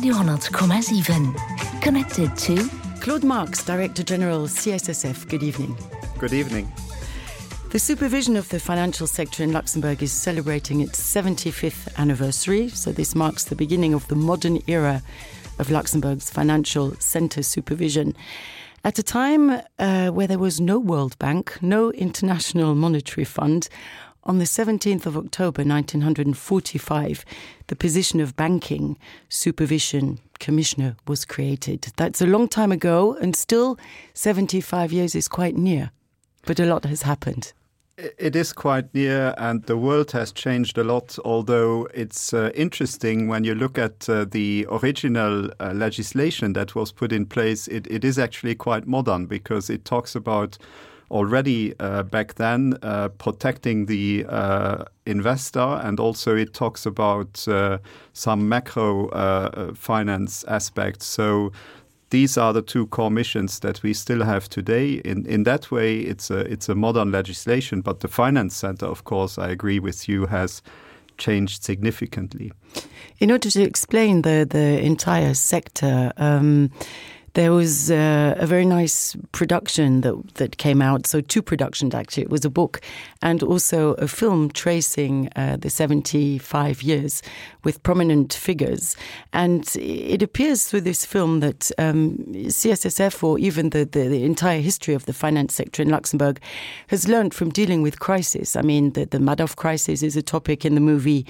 Radio,7. Connected to Claude Marks, Director General, CSSF. Good evening. Good evening. The supervision of the financial sector in Luxembourg is celebrating its 75th anniversary, so this marks the beginning of the modern era of Luxembourg's financial centre supervision. At a time where there was no World Bank, no International Monetary Fund, on the 17th of October 1945, the position of Banking Supervision Commissioner was created. That's a long time ago, and still 75 years is quite near. But a lot has happened. It is quite near, and the world has changed a lot, although it's interesting when you look at the original legislation that was put in place. It is actually quite modern because it talks about already back then protecting the investor, and also it talks about some macro finance aspects. So these are the two core missions that we still have today. In that way, it's a modern legislation, but the finance center, of course, I agree with you, has changed significantly. In order to explain the entire sector, there was a very nice production that came out. So two productions, actually. It was a book and also a film tracing the 75 years with prominent figures. And it appears through this film that CSSF, or even the entire history of the finance sector in Luxembourg, has learned from dealing with crisis. I mean, the Madoff crisis is a topic in the movie.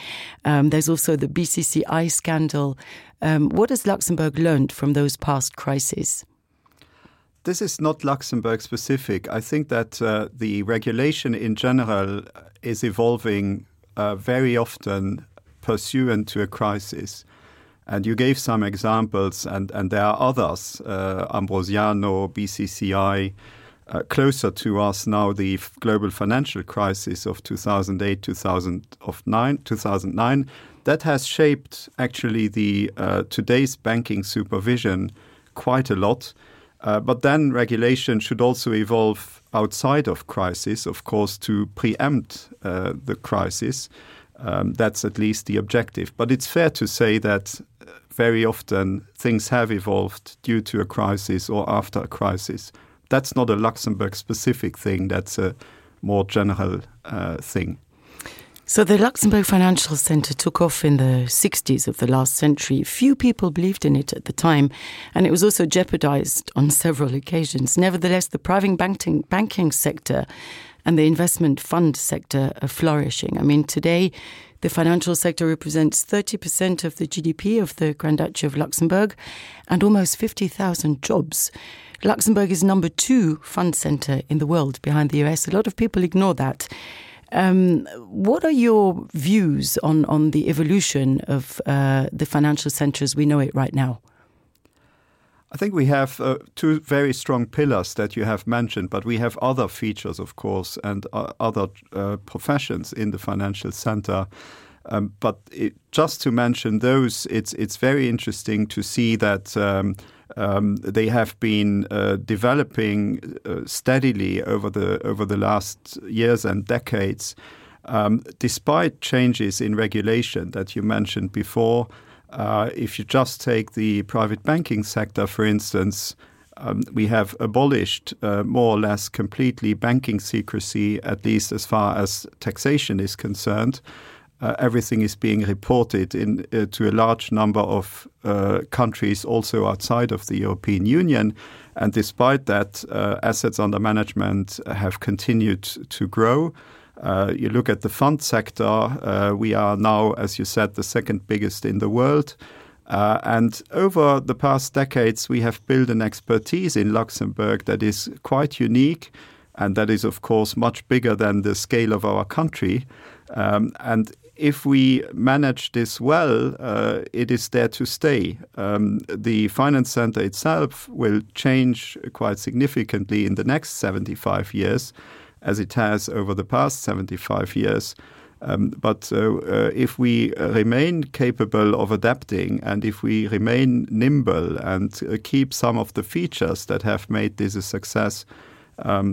There's also the BCCI scandal. What has Luxembourg learned from those past crises? This is not Luxembourg specific. I think that the regulation in general is evolving very often pursuant to a crisis. And you gave some examples, and there are others, Ambrosiano, BCCI, closer to us now, the global financial crisis of 2008, 2009. That has shaped actually the today's banking supervision quite a lot. But then regulation should also evolve outside of crisis, of course, to preempt the crisis. That's at least the objective. But it's fair to say that very often things have evolved due to a crisis or after a crisis. That's not a Luxembourg-specific thing. That's a more general thing. So the Luxembourg Financial Centre took off in the 60s of the last century. Few people believed in it at the time, and it was also jeopardized on several occasions. Nevertheless, the private banking sector and the investment fund sector are flourishing. I mean, today, the financial sector represents 30% of the GDP of the Grand Duchy of Luxembourg and almost 50,000 jobs. Luxembourg is number 2 fund centre in the world behind the US. A lot of people ignore that. What are your views on the evolution of the financial centre as we know it right now? I think we have two very strong pillars that you have mentioned, but we have other features, of course, and other professions in the financial centre. But just to mention those, it's very interesting to see that they have been developing steadily over the last years and decades, despite changes in regulation that you mentioned before. If you just take the private banking sector, for instance, we have abolished more or less completely banking secrecy, at least as far as taxation is concerned. Everything is being reported to a large number of countries also outside of the European Union. And despite that, assets under management have continued to grow. You look at the fund sector, we are now, as you said, the second biggest in the world. And over the past decades, we have built an expertise in Luxembourg that is quite unique, and that is, of course, much bigger than the scale of our country. And if we manage this well, it is there to stay. The finance center itself will change quite significantly in the next 75 years, as it has over the past 75 years. But if we remain capable of adapting, and if we remain nimble and keep some of the features that have made this a success,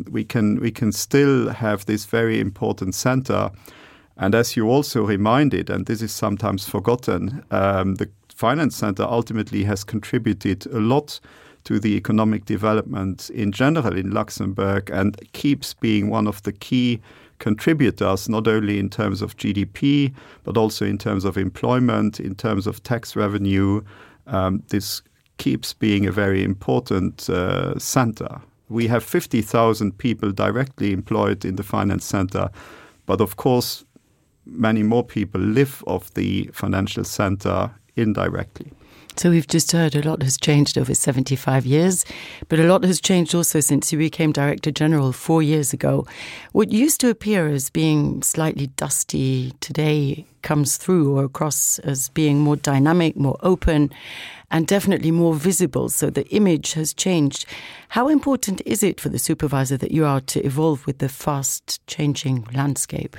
we can still have this very important center. And as you also reminded, and this is sometimes forgotten, the finance center ultimately has contributed a lot to the economic development in general in Luxembourg and keeps being one of the key contributors, not only in terms of GDP, but also in terms of employment, in terms of tax revenue. This keeps being a very important center. We have 50,000 people directly employed in the finance center, but of course, many more people live off the financial center indirectly. So we've just heard a lot has changed over 75 years, but a lot has changed also since you became Director General 4 years ago. What used to appear as being slightly dusty today comes through or across as being more dynamic, more open, and definitely more visible. So the image has changed. How important is it for the supervisor that you are to evolve with the fast-changing landscape?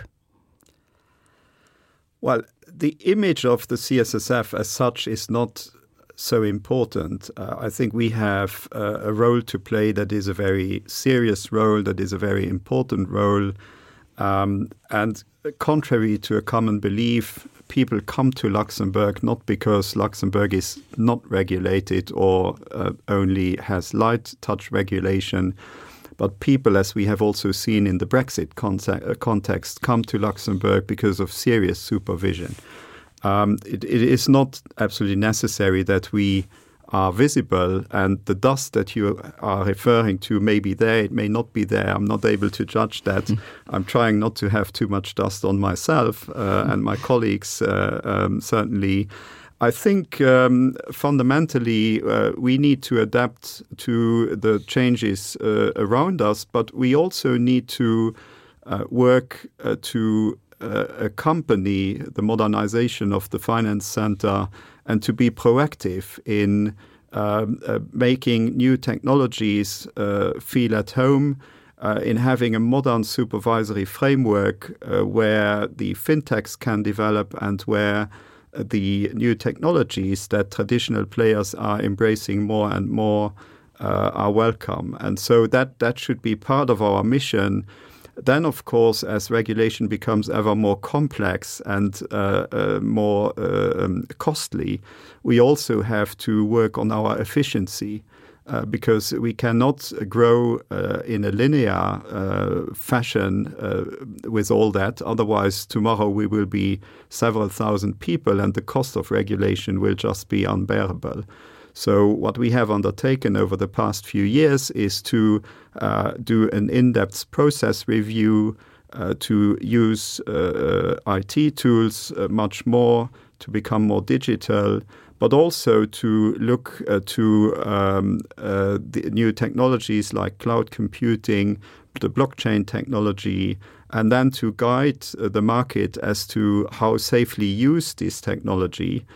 Well, the image of the CSSF as such is not so important. I think we have a role to play that is a very serious role, that is a very important role. And contrary to a common belief, people come to Luxembourg not because Luxembourg is not regulated or only has light touch regulation, but people, as we have also seen in the Brexit context, come to Luxembourg because of serious supervision. It is not absolutely necessary that we are visible, and the dust that you are referring to may be there, it may not be there. I'm not able to judge that. I'm trying not to have too much dust on myself and my colleagues, certainly. I think fundamentally we need to adapt to the changes around us, but we also need to work to accompany the modernization of the finance center and to be proactive in making new technologies feel at home, in having a modern supervisory framework where the fintechs can develop and where the new technologies that traditional players are embracing more and more are welcome. And so that should be part of our mission. Then, of course, as regulation becomes ever more complex and more costly, we also have to work on our efficiency because we cannot grow in a linear fashion with all that. Otherwise, tomorrow we will be several thousand people and the cost of regulation will just be unbearable. So what we have undertaken over the past few years is to do an in-depth process review, to use IT tools much more, to become more digital, but also to look to the new technologies like cloud computing, the blockchain technology, and then to guide the market as to how safely use this technology.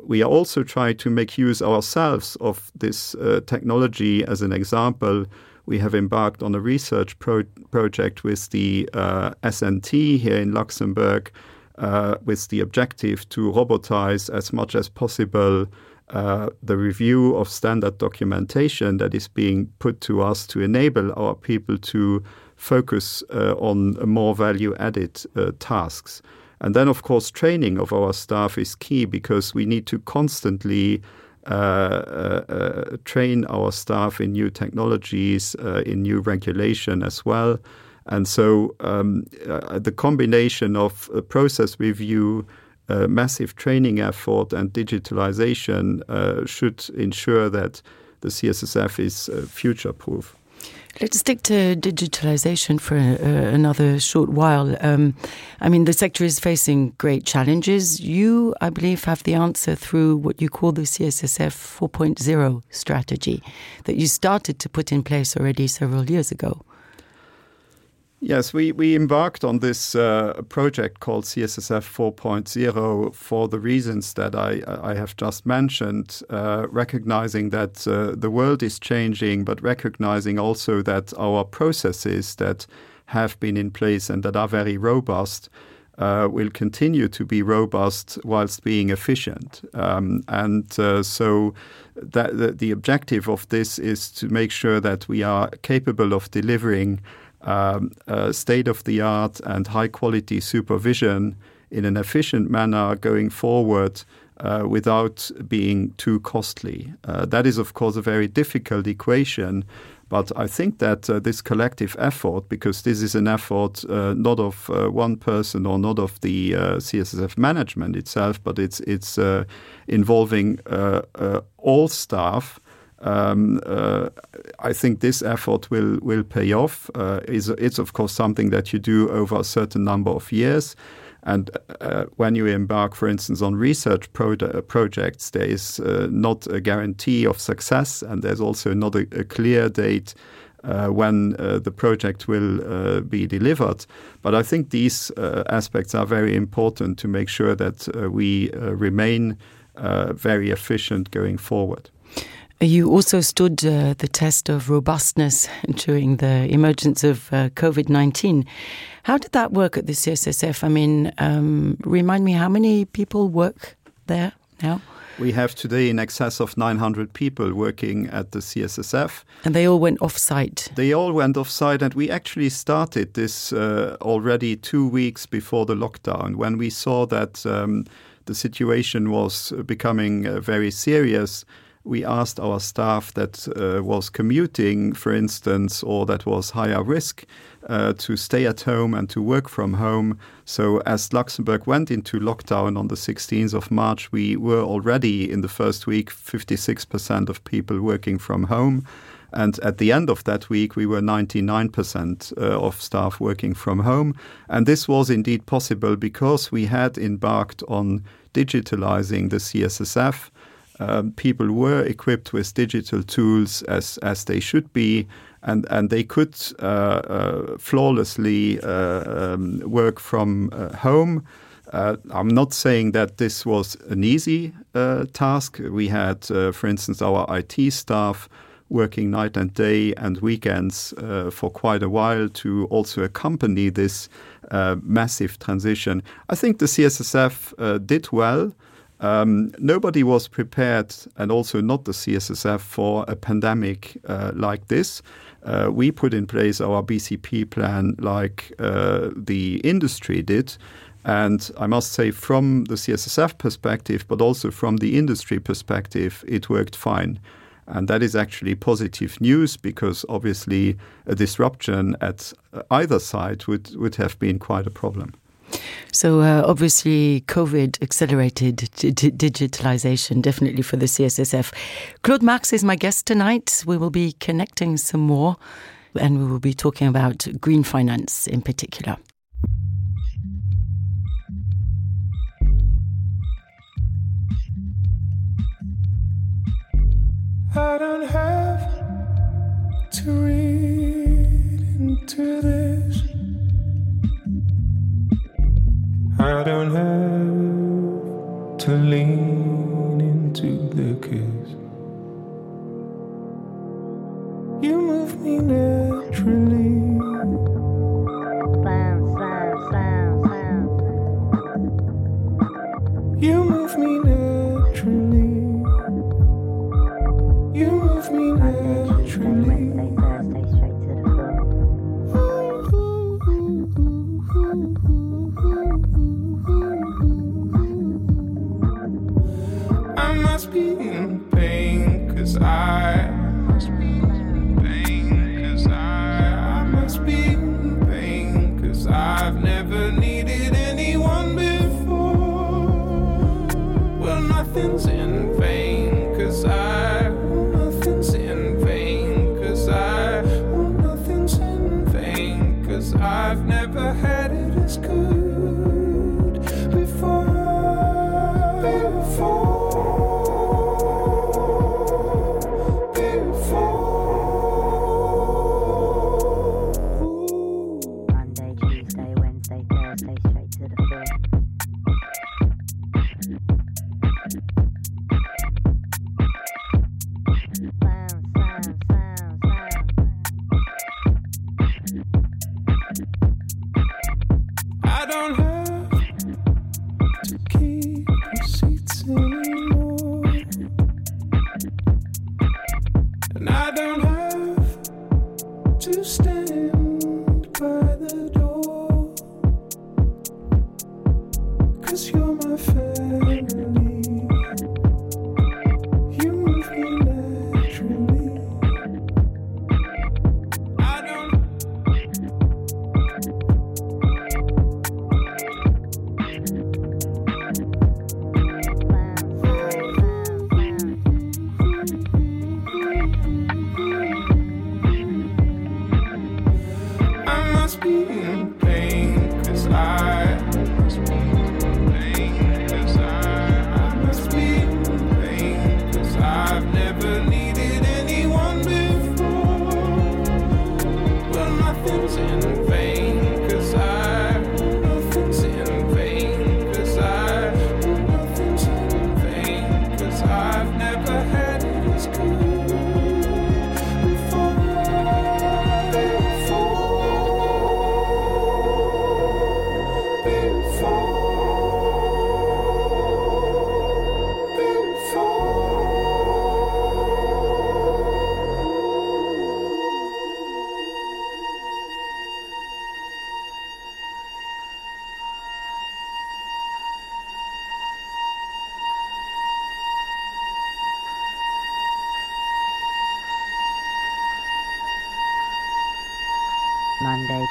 We are also trying to make use ourselves of this technology. As an example, we have embarked on a research project with the SNT here in Luxembourg with the objective to robotize as much as possible the review of standard documentation that is being put to us to enable our people to focus on more value-added tasks. And then, of course, training of our staff is key because we need to constantly train our staff in new technologies, in new regulation as well. And so the combination of process review, massive training effort and digitalization should ensure that the CSSF is future-proof. Let's stick to digitalization for another short while. I mean, the sector is facing great challenges. You, I believe, have the answer through what you call the CSSF 4.0 strategy that you started to put in place already several years ago. Yes, we embarked on this project called CSSF 4.0 for the reasons that I have just mentioned, recognizing that the world is changing, but recognizing also that our processes that have been in place and that are very robust will continue to be robust whilst being efficient. So that the objective of this is to make sure that we are capable of delivering state-of-the-art and high-quality supervision in an efficient manner going forward without being too costly. That is, of course, a very difficult equation, but I think that this collective effort, because this is an effort not of one person or not of the CSSF management itself, but it's involving all staff, I think this effort will pay off. It's of course something that you do over a certain number of years. And when you embark, for instance, on research projects, there is not a guarantee of success, and there's also not a clear date when the project will be delivered. But I think these aspects are very important to make sure that we remain very efficient going forward. You also stood the test of robustness during the emergence of COVID-19. How did that work at the CSSF? I mean, remind me, how many people work there now? We have today in excess of 900 people working at the CSSF. And they all went off-site? They all went off-site, and we actually started this already 2 weeks before the lockdown, when we saw that the situation was becoming very serious. We asked our staff that was commuting, for instance, or that was higher risk, to stay at home and to work from home. So as Luxembourg went into lockdown on the 16th of March, we were already in the first week 56% of people working from home. And at the end of that week, we were 99% of staff working from home. And this was indeed possible because we had embarked on digitalizing the CSSF. People were equipped with digital tools as they should be, and they could flawlessly work from home. I'm not saying that this was an easy task. We had, for instance, our IT staff working night and day and weekends for quite a while to also accompany this massive transition. I think the CSSF did well. Nobody was prepared, and also not the CSSF, for a pandemic like this. We put in place our BCP plan like the industry did. And I must say, from the CSSF perspective, but also from the industry perspective, it worked fine. And that is actually positive news, because obviously a disruption at either side would have been quite a problem. So obviously COVID accelerated digitalization, definitely for the CSSF. Claude Marx is my guest tonight. We will be connecting some more, and we will be talking about green finance in particular. I don't have to read into this. I don't have to lean into the kiss. You move me naturally. You move me naturally. You move me naturally. I must be in pain, 'cause I must be in pain, 'cause I must be in pain, 'cause I've never needed anyone before. Well, nothing's in vain, 'cause nothing's in vain, 'cause nothing's in vain, 'cause I've never had it as good before. Monday, Tuesday, Wednesday, Thursday, straight to the floor.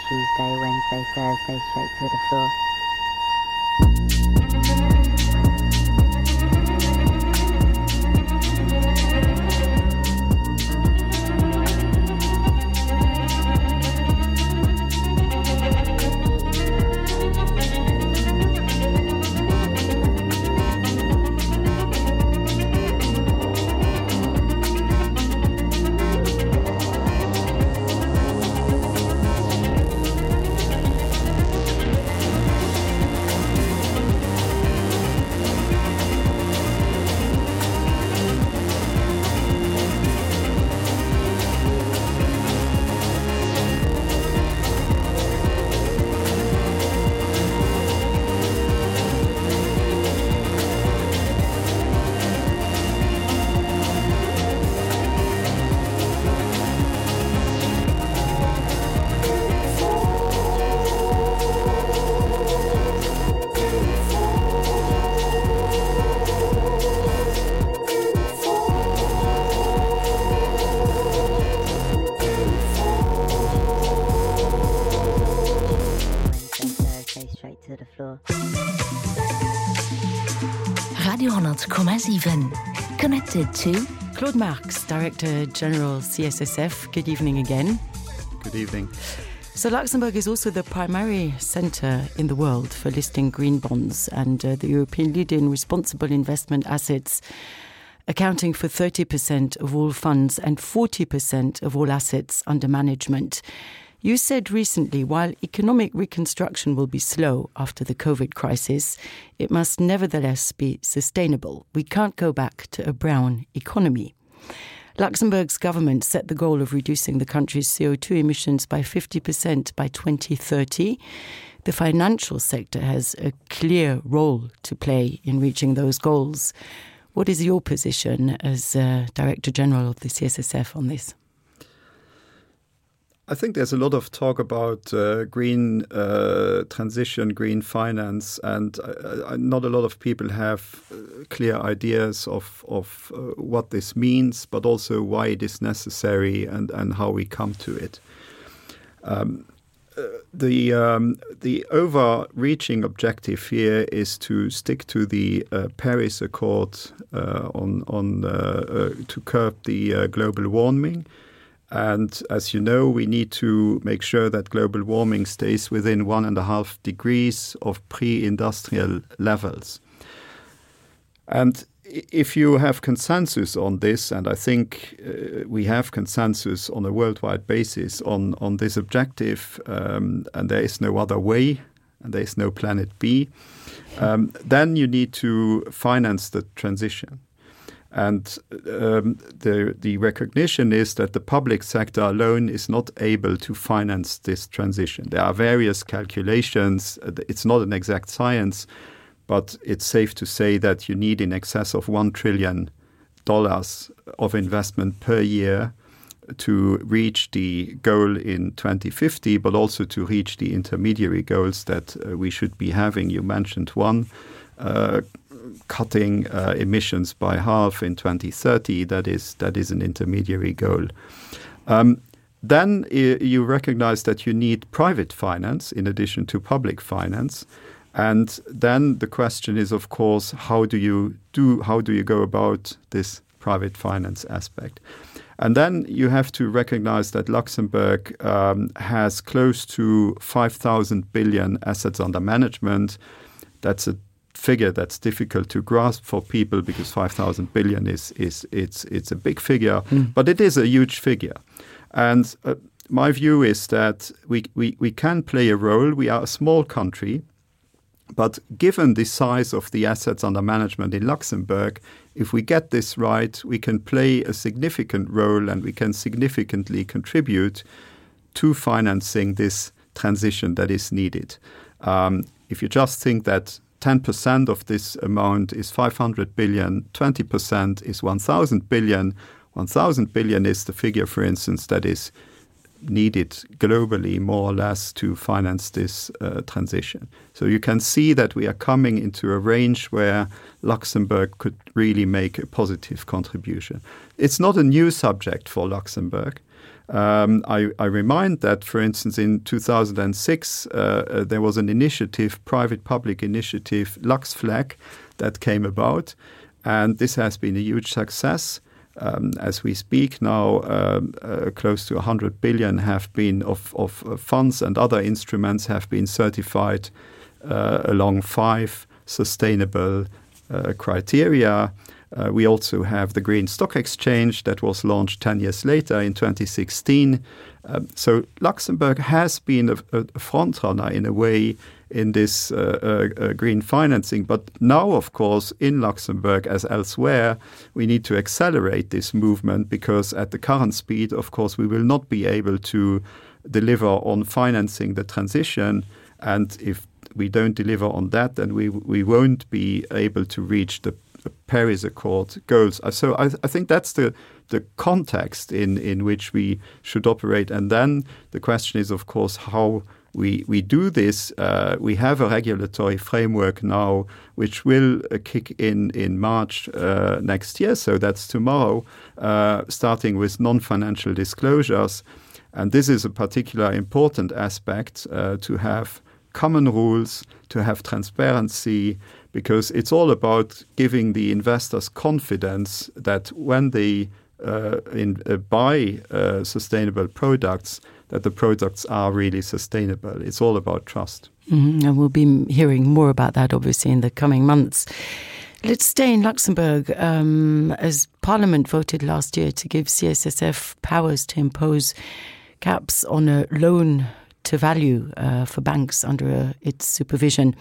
Tuesday, Wednesday, Thursday, straight to the floor. Radio 100,7 connected to Claude Marx, Director General CSSF. Good evening again. Good evening. So Luxembourg is also the primary centre in the world for listing green bonds and the European leader in responsible investment assets, accounting for 30% of all funds and 40% of all assets under management. You said recently, while economic reconstruction will be slow after the COVID crisis, it must nevertheless be sustainable. We can't go back to a brown economy. Luxembourg's government set the goal of reducing the country's CO2 emissions by 50% by 2030. The financial sector has a clear role to play in reaching those goals. What is your position as Director General of the CSSF on this? I think there's a lot of talk about green transition, green finance, and not a lot of people have clear ideas of what this means, but also why it is necessary and how we come to it. The overreaching objective here is to stick to the Paris Accord to curb the global warming. And as you know, we need to make sure that global warming stays within 1.5 degrees of pre-industrial levels. And if you have consensus on this, and I think we have consensus on a worldwide basis on this objective, and there is no other way, and there is no planet B, then you need to finance the transition. And the recognition is that the public sector alone is not able to finance this transition. There are various calculations. It's not an exact science, but it's safe to say that you need in excess of $1 trillion of investment per year to reach the goal in 2050, but also to reach the intermediary goals that we should be having. You mentioned one, cutting emissions by half in 2030. That is an intermediary goal. Then you recognize that you need private finance in addition to public finance. And then the question is, of course, how do you go about this private finance aspect? And then you have to recognize that Luxembourg has close to 5,000 billion assets under management. That's a figure that's difficult to grasp for people because 5,000 billion it's a big figure, but it is a huge figure. And my view is that we can play a role. We are a small country, but given the size of the assets under management in Luxembourg, if we get this right, we can play a significant role and we can significantly contribute to financing this transition that is needed. If you just think that 10% of this amount is 500 billion, 20% is 1,000 billion. 1,000 billion is the figure, for instance, that is needed globally, more or less, to finance this transition. So you can see that we are coming into a range where Luxembourg could really make a positive contribution. It's not a new subject for Luxembourg. I remind that, for instance, in 2006, there was an initiative, private-public initiative, LuxFlag, that came about, and this has been a huge success. As we speak now, close to 100 billion have been of funds and other instruments have been certified along 5 sustainable criteria. We also have the Green Stock Exchange that was launched 10 years later in 2016. So Luxembourg has been a frontrunner in a way in this green financing. But now, of course, in Luxembourg as elsewhere, we need to accelerate this movement because at the current speed, of course, we will not be able to deliver on financing the transition. And if we don't deliver on that, then we won't be able to reach the Paris Accord goals. So I think that's the context in which we should operate. And then the question is, of course, how we do this. We have a regulatory framework now which will kick in March next year. So that's tomorrow, starting with non-financial disclosures. And this is a particular important aspect to have common rules, to have transparency, because it's all about giving the investors confidence that when they buy sustainable products, that the products are really sustainable. It's all about trust. Mm-hmm. And we'll be hearing more about that, obviously, in the coming months. Let's stay in Luxembourg. As Parliament voted last year to give CSSF powers to impose caps on a loan to value for banks under its supervision.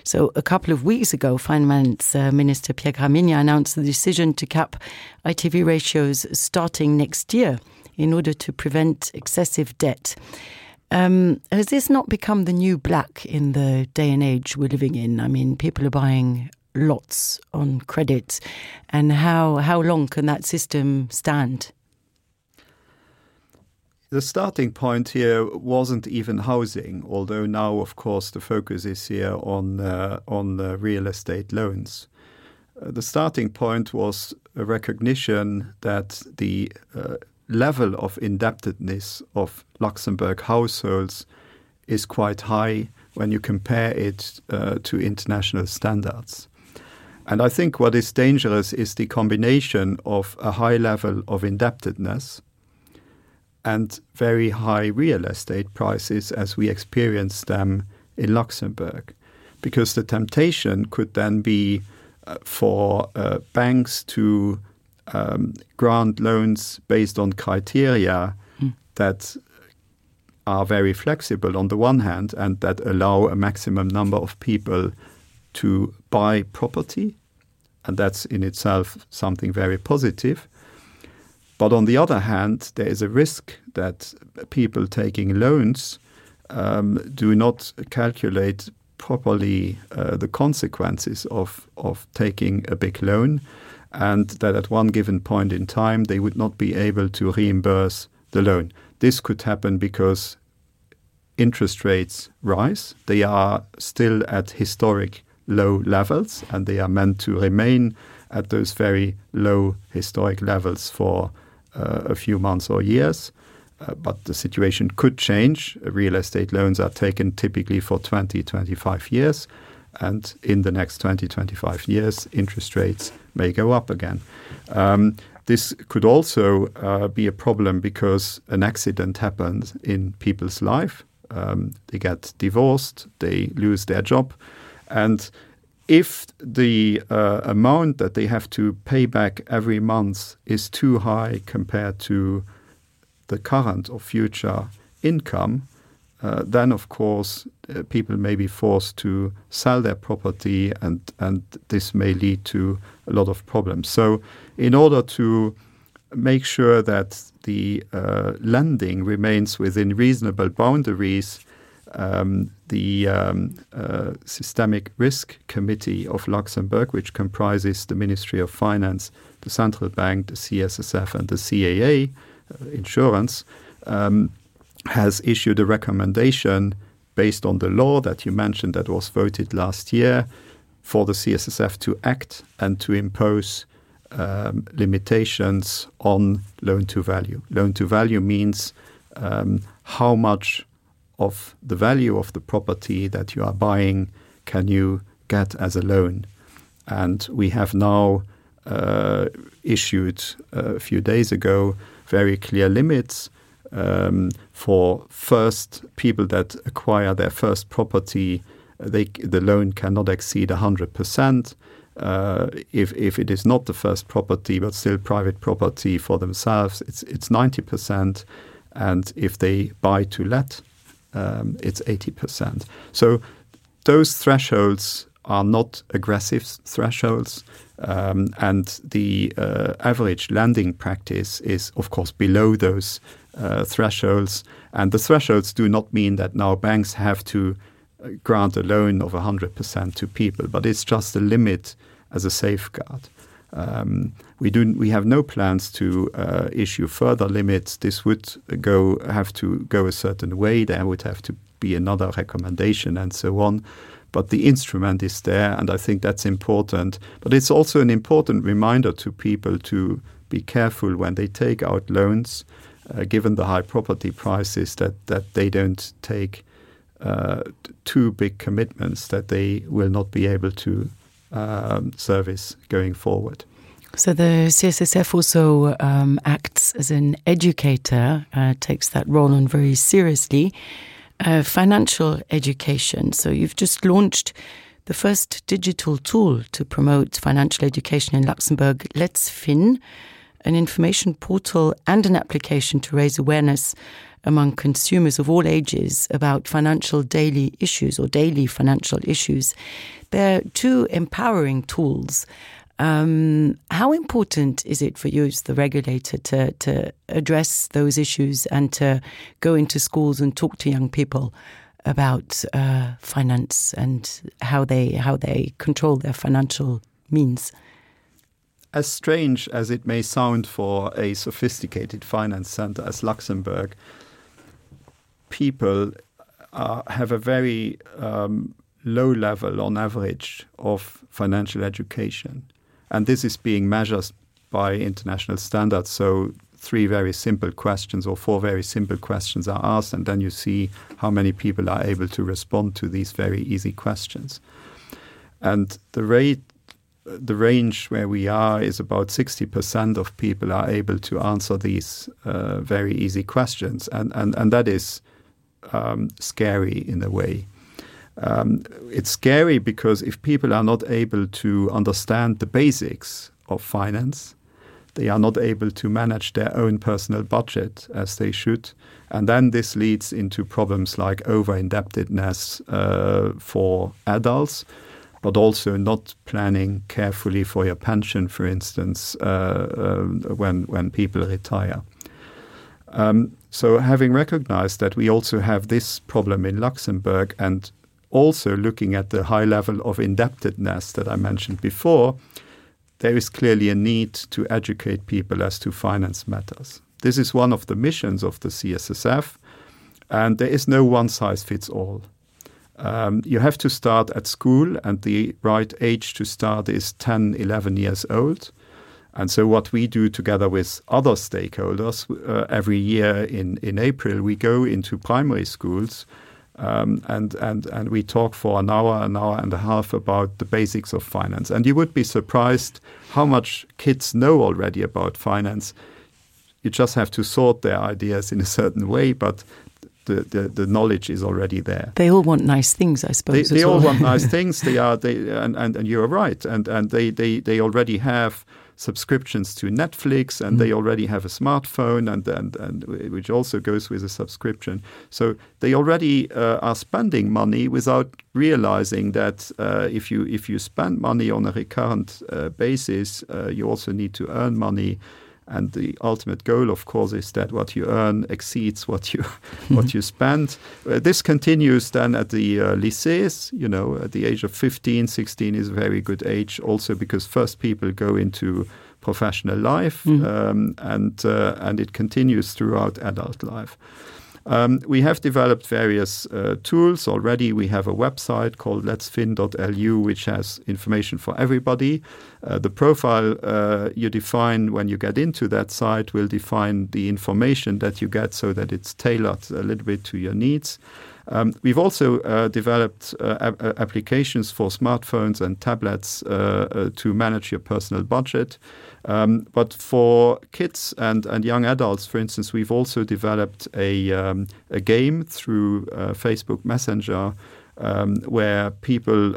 So a couple of weeks ago, Finance Minister Pierre Gramigna announced the decision to cap ITV ratios starting next year in order to prevent excessive debt. Has this not become the new black in the day and age we're living in? I mean, people are buying lots on credit. And how long can that system stand? The starting point here wasn't even housing, although now, of course, the focus is here on real estate loans. The starting point was a recognition that the level of indebtedness of Luxembourg households is quite high when you compare it to international standards. And I think what is dangerous is the combination of a high level of indebtedness and very high real estate prices as we experience them in Luxembourg. Because the temptation could then be for banks to grant loans based on criteria that are very flexible on the one hand and that allow a maximum number of people to buy property. And that's in itself something very positive. But on the other hand, there is a risk that people taking loans do not calculate properly the consequences of taking a big loan, and that at one given point in time they would not be able to reimburse the loan. This could happen because interest rates rise. They are still at historic low levels, and they are meant to remain at those very low historic levels for a few months or years, but the situation could change. Real estate loans are taken typically for 20-25 years, and in the next 20-25 years, interest rates may go up again. This could also be a problem because an accident happens in people's life. They get divorced, they lose their job, and if the amount that they have to pay back every month is too high compared to the current or future income, then, of course, people may be forced to sell their property, and this may lead to a lot of problems. So in order to make sure that the lending remains within reasonable boundaries, the Systemic Risk Committee of Luxembourg, which comprises the Ministry of Finance, the Central Bank, the CSSF, and the CAA, insurance, has issued a recommendation based on the law that you mentioned that was voted last year for the CSSF to act and to impose limitations on loan-to-value. Loan-to-value means how much of the value of the property that you are buying can you get as a loan. And we have now issued a few days ago very clear limits for first people that acquire their first property. The loan cannot exceed 100%. If it is not the first property but still private property for themselves, it's 90%. And if they buy to let, it's 80%. So those thresholds are not aggressive thresholds, and the average lending practice is, of course, below those thresholds. And the thresholds do not mean that now banks have to grant a loan of 100% to people, but it's just a limit as a safeguard. We have no plans to issue further limits. This would have to go a certain way. There would have to be another recommendation and so on. But the instrument is there, and I think that's important. But it's also an important reminder to people to be careful when they take out loans, given the high property prices, that they don't take too big commitments that they will not be able to service going forward. So the CSSF also acts as an educator, takes that role on very seriously. Financial education. So you've just launched the first digital tool to promote financial education in Luxembourg, Let's Fin, an information portal and an application to raise awareness among consumers of all ages about financial daily issues or daily financial issues. They're two empowering tools. How important is it for you as the regulator to address those issues and to go into schools and talk to young people about finance and how they control their financial means? As strange as it may sound for a sophisticated finance center as Luxembourg, people have a very low level on average of financial education. And this is being measured by international standards. So 3 very simple questions or 4 very simple questions are asked, and then you see how many people are able to respond to these very easy questions. And the range where we are is about 60% of people are able to answer these very easy questions. And that is scary in a way. It's scary because if people are not able to understand the basics of finance, they are not able to manage their own personal budget as they should. And then this leads into problems like over-indebtedness for adults, but also not planning carefully for your pension, for instance, when people retire. So having recognized that we also have this problem in Luxembourg, and also looking at the high level of indebtedness that I mentioned before, there is clearly a need to educate people as to finance matters. This is one of the missions of the CSSF, and there is no one-size-fits-all. You have to start at school, and the right age to start is 10, 11 years old. And so what we do together with other stakeholders, every year in April, we go into primary schools and we talk for an hour and a half about the basics of finance. And you would be surprised how much kids know already about finance. You just have to sort their ideas in a certain way, but the knowledge is already there. They all want nice things, I suppose. They all want nice things. And you are right. And they already have subscriptions to Netflix, and they already have a smartphone, and which also goes with a subscription. So they already are spending money without realizing that if you spend money on a recurrent basis, you also need to earn money. And the ultimate goal, of course, is that what you earn exceeds what you spend. This continues then at the lycées. At the age of 15, 16 is a very good age, also because first people go into professional life, and it continues throughout adult life. We have developed various tools already. We have a website called letsfin.lu, which has information for everybody. The profile you define when you get into that site will define the information that you get so that it's tailored a little bit to your needs. We've also developed applications for smartphones and tablets to manage your personal budget. But for kids and young adults, for instance, we've also developed a game through Facebook Messenger where people,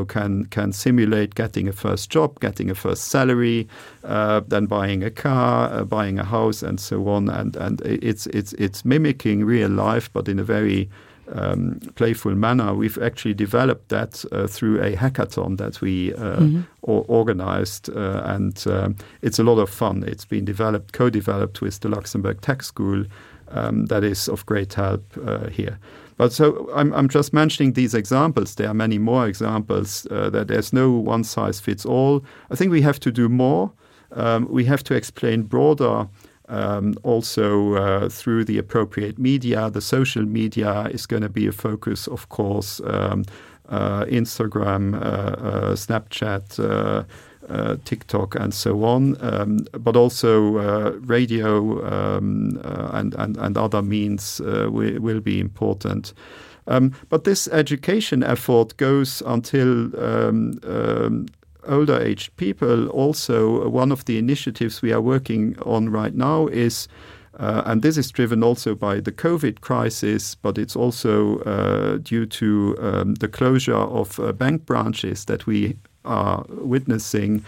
can simulate getting a first job, getting a first salary, then buying a car, buying a house, and so on. And it's mimicking real life, but in a very playful manner. We've actually developed that through a hackathon that we organized, and it's a lot of fun. It's been co-developed with the Luxembourg Tech School. That is of great help here. But so I'm just mentioning these examples. There are many more examples that there's no one size fits all. I think we have to do more. We have to explain broader. Also through the appropriate media. The social media is going to be a focus, of course, Instagram, Snapchat, TikTok, and so on, but also radio and other means will be important. But this education effort goes until older aged people. Also, one of the initiatives we are working on right now is, and this is driven also by the COVID crisis, but it's also due to the closure of bank branches that we are witnessing.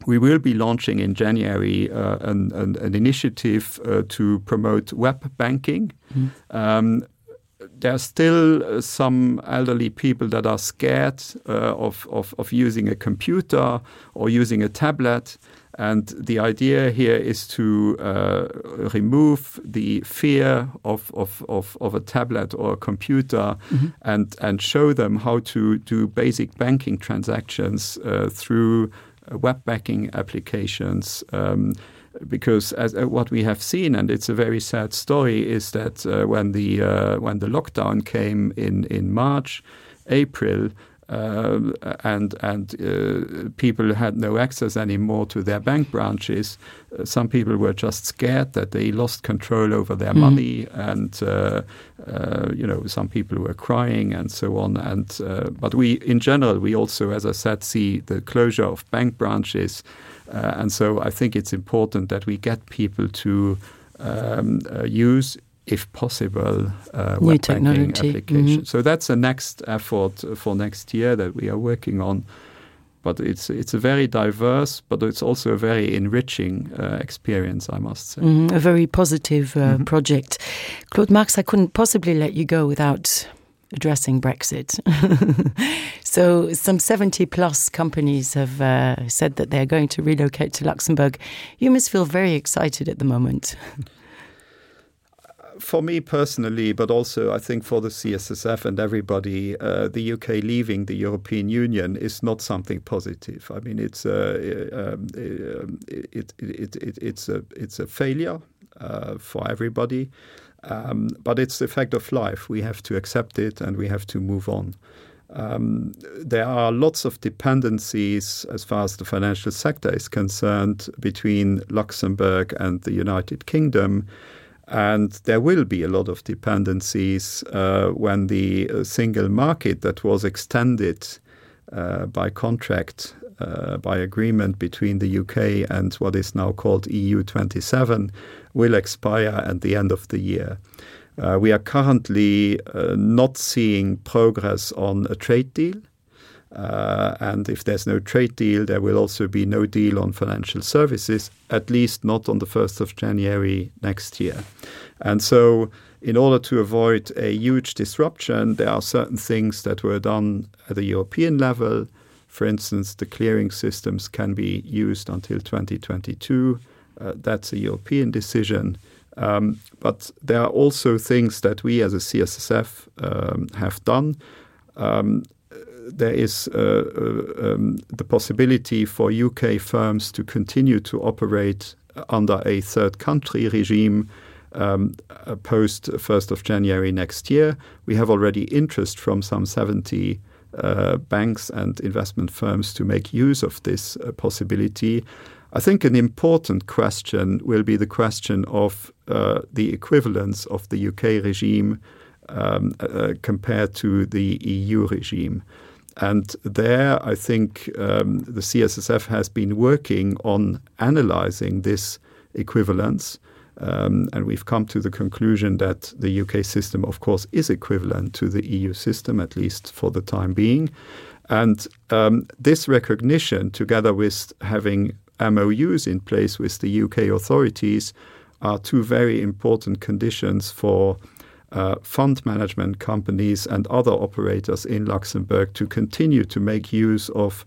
We will be launching in January an initiative to promote web banking. There are still some elderly people that are scared of using a computer or using a tablet. And the idea here is to remove the fear of a tablet or a computer and show them how to do basic banking transactions through web banking applications. Because as what we have seen, and it's a very sad story, is that when the lockdown came in March, April, and people had no access anymore to their bank branches, some people were just scared that they lost control over their money, and some people were crying and so on. And but we, in general, we also, as I said, see the closure of bank branches. And so I think it's important that we get people to use, if possible, web banking applications. So that's the next effort for next year that we are working on. But it's a very diverse, but it's also a very enriching experience, I must say. A very positive project. Claude Marx, I couldn't possibly let you go without addressing Brexit. So some 70-plus companies have said that they're going to relocate to Luxembourg. You must feel very excited at the moment. For me personally, but also I think for the CSSF and everybody, the UK leaving the European Union is not something positive. I mean, it's a failure for everybody. But it's the fact of life. We have to accept it and we have to move on. There are lots of dependencies as far as the financial sector is concerned between Luxembourg and the United Kingdom. And there will be a lot of dependencies when the single market that was extended by contract, by agreement between the UK and what is now called EU27 will expire at the end of the year. We are currently not seeing progress on a trade deal. And if there's no trade deal, there will also be no deal on financial services, at least not on the 1st of January next year. And so in order to avoid a huge disruption, there are certain things that were done at the European level. For instance, the clearing systems can be used until 2022. That's a European decision. But there are also things that we as a CSSF have done. There is the possibility for UK firms to continue to operate under a third country regime post 1st of January next year. We have already interest from some 70 banks and investment firms to make use of this possibility. I think an important question will be the question of the equivalence of the UK regime compared to the EU regime. And there, I think the CSSF has been working on analyzing this equivalence. And we've come to the conclusion that the UK system, of course, is equivalent to the EU system, at least for the time being. And this recognition, together with having MOUs in place with the UK authorities, are two very important conditions for fund management companies and other operators in Luxembourg to continue to make use of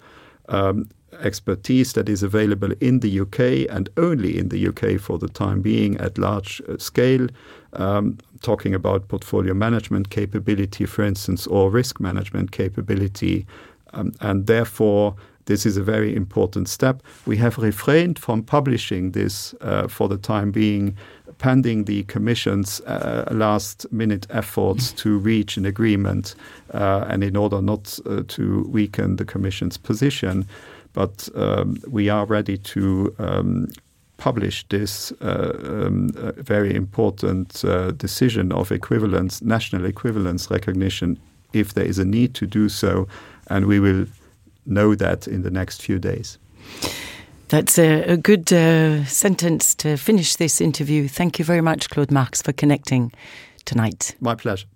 expertise that is available in the UK and only in the UK for the time being at large scale, talking about portfolio management capability, for instance, or risk management capability. And therefore, this is a very important step. We have refrained from publishing this for the time being, pending the Commission's last-minute efforts to reach an agreement and in order not to weaken the Commission's position. But we are ready to publish this very important decision of equivalence, national equivalence recognition, if there is a need to do so, and we will know that in the next few days. That's a good sentence to finish this interview. Thank you very much, Claude Marx, for connecting tonight. My pleasure.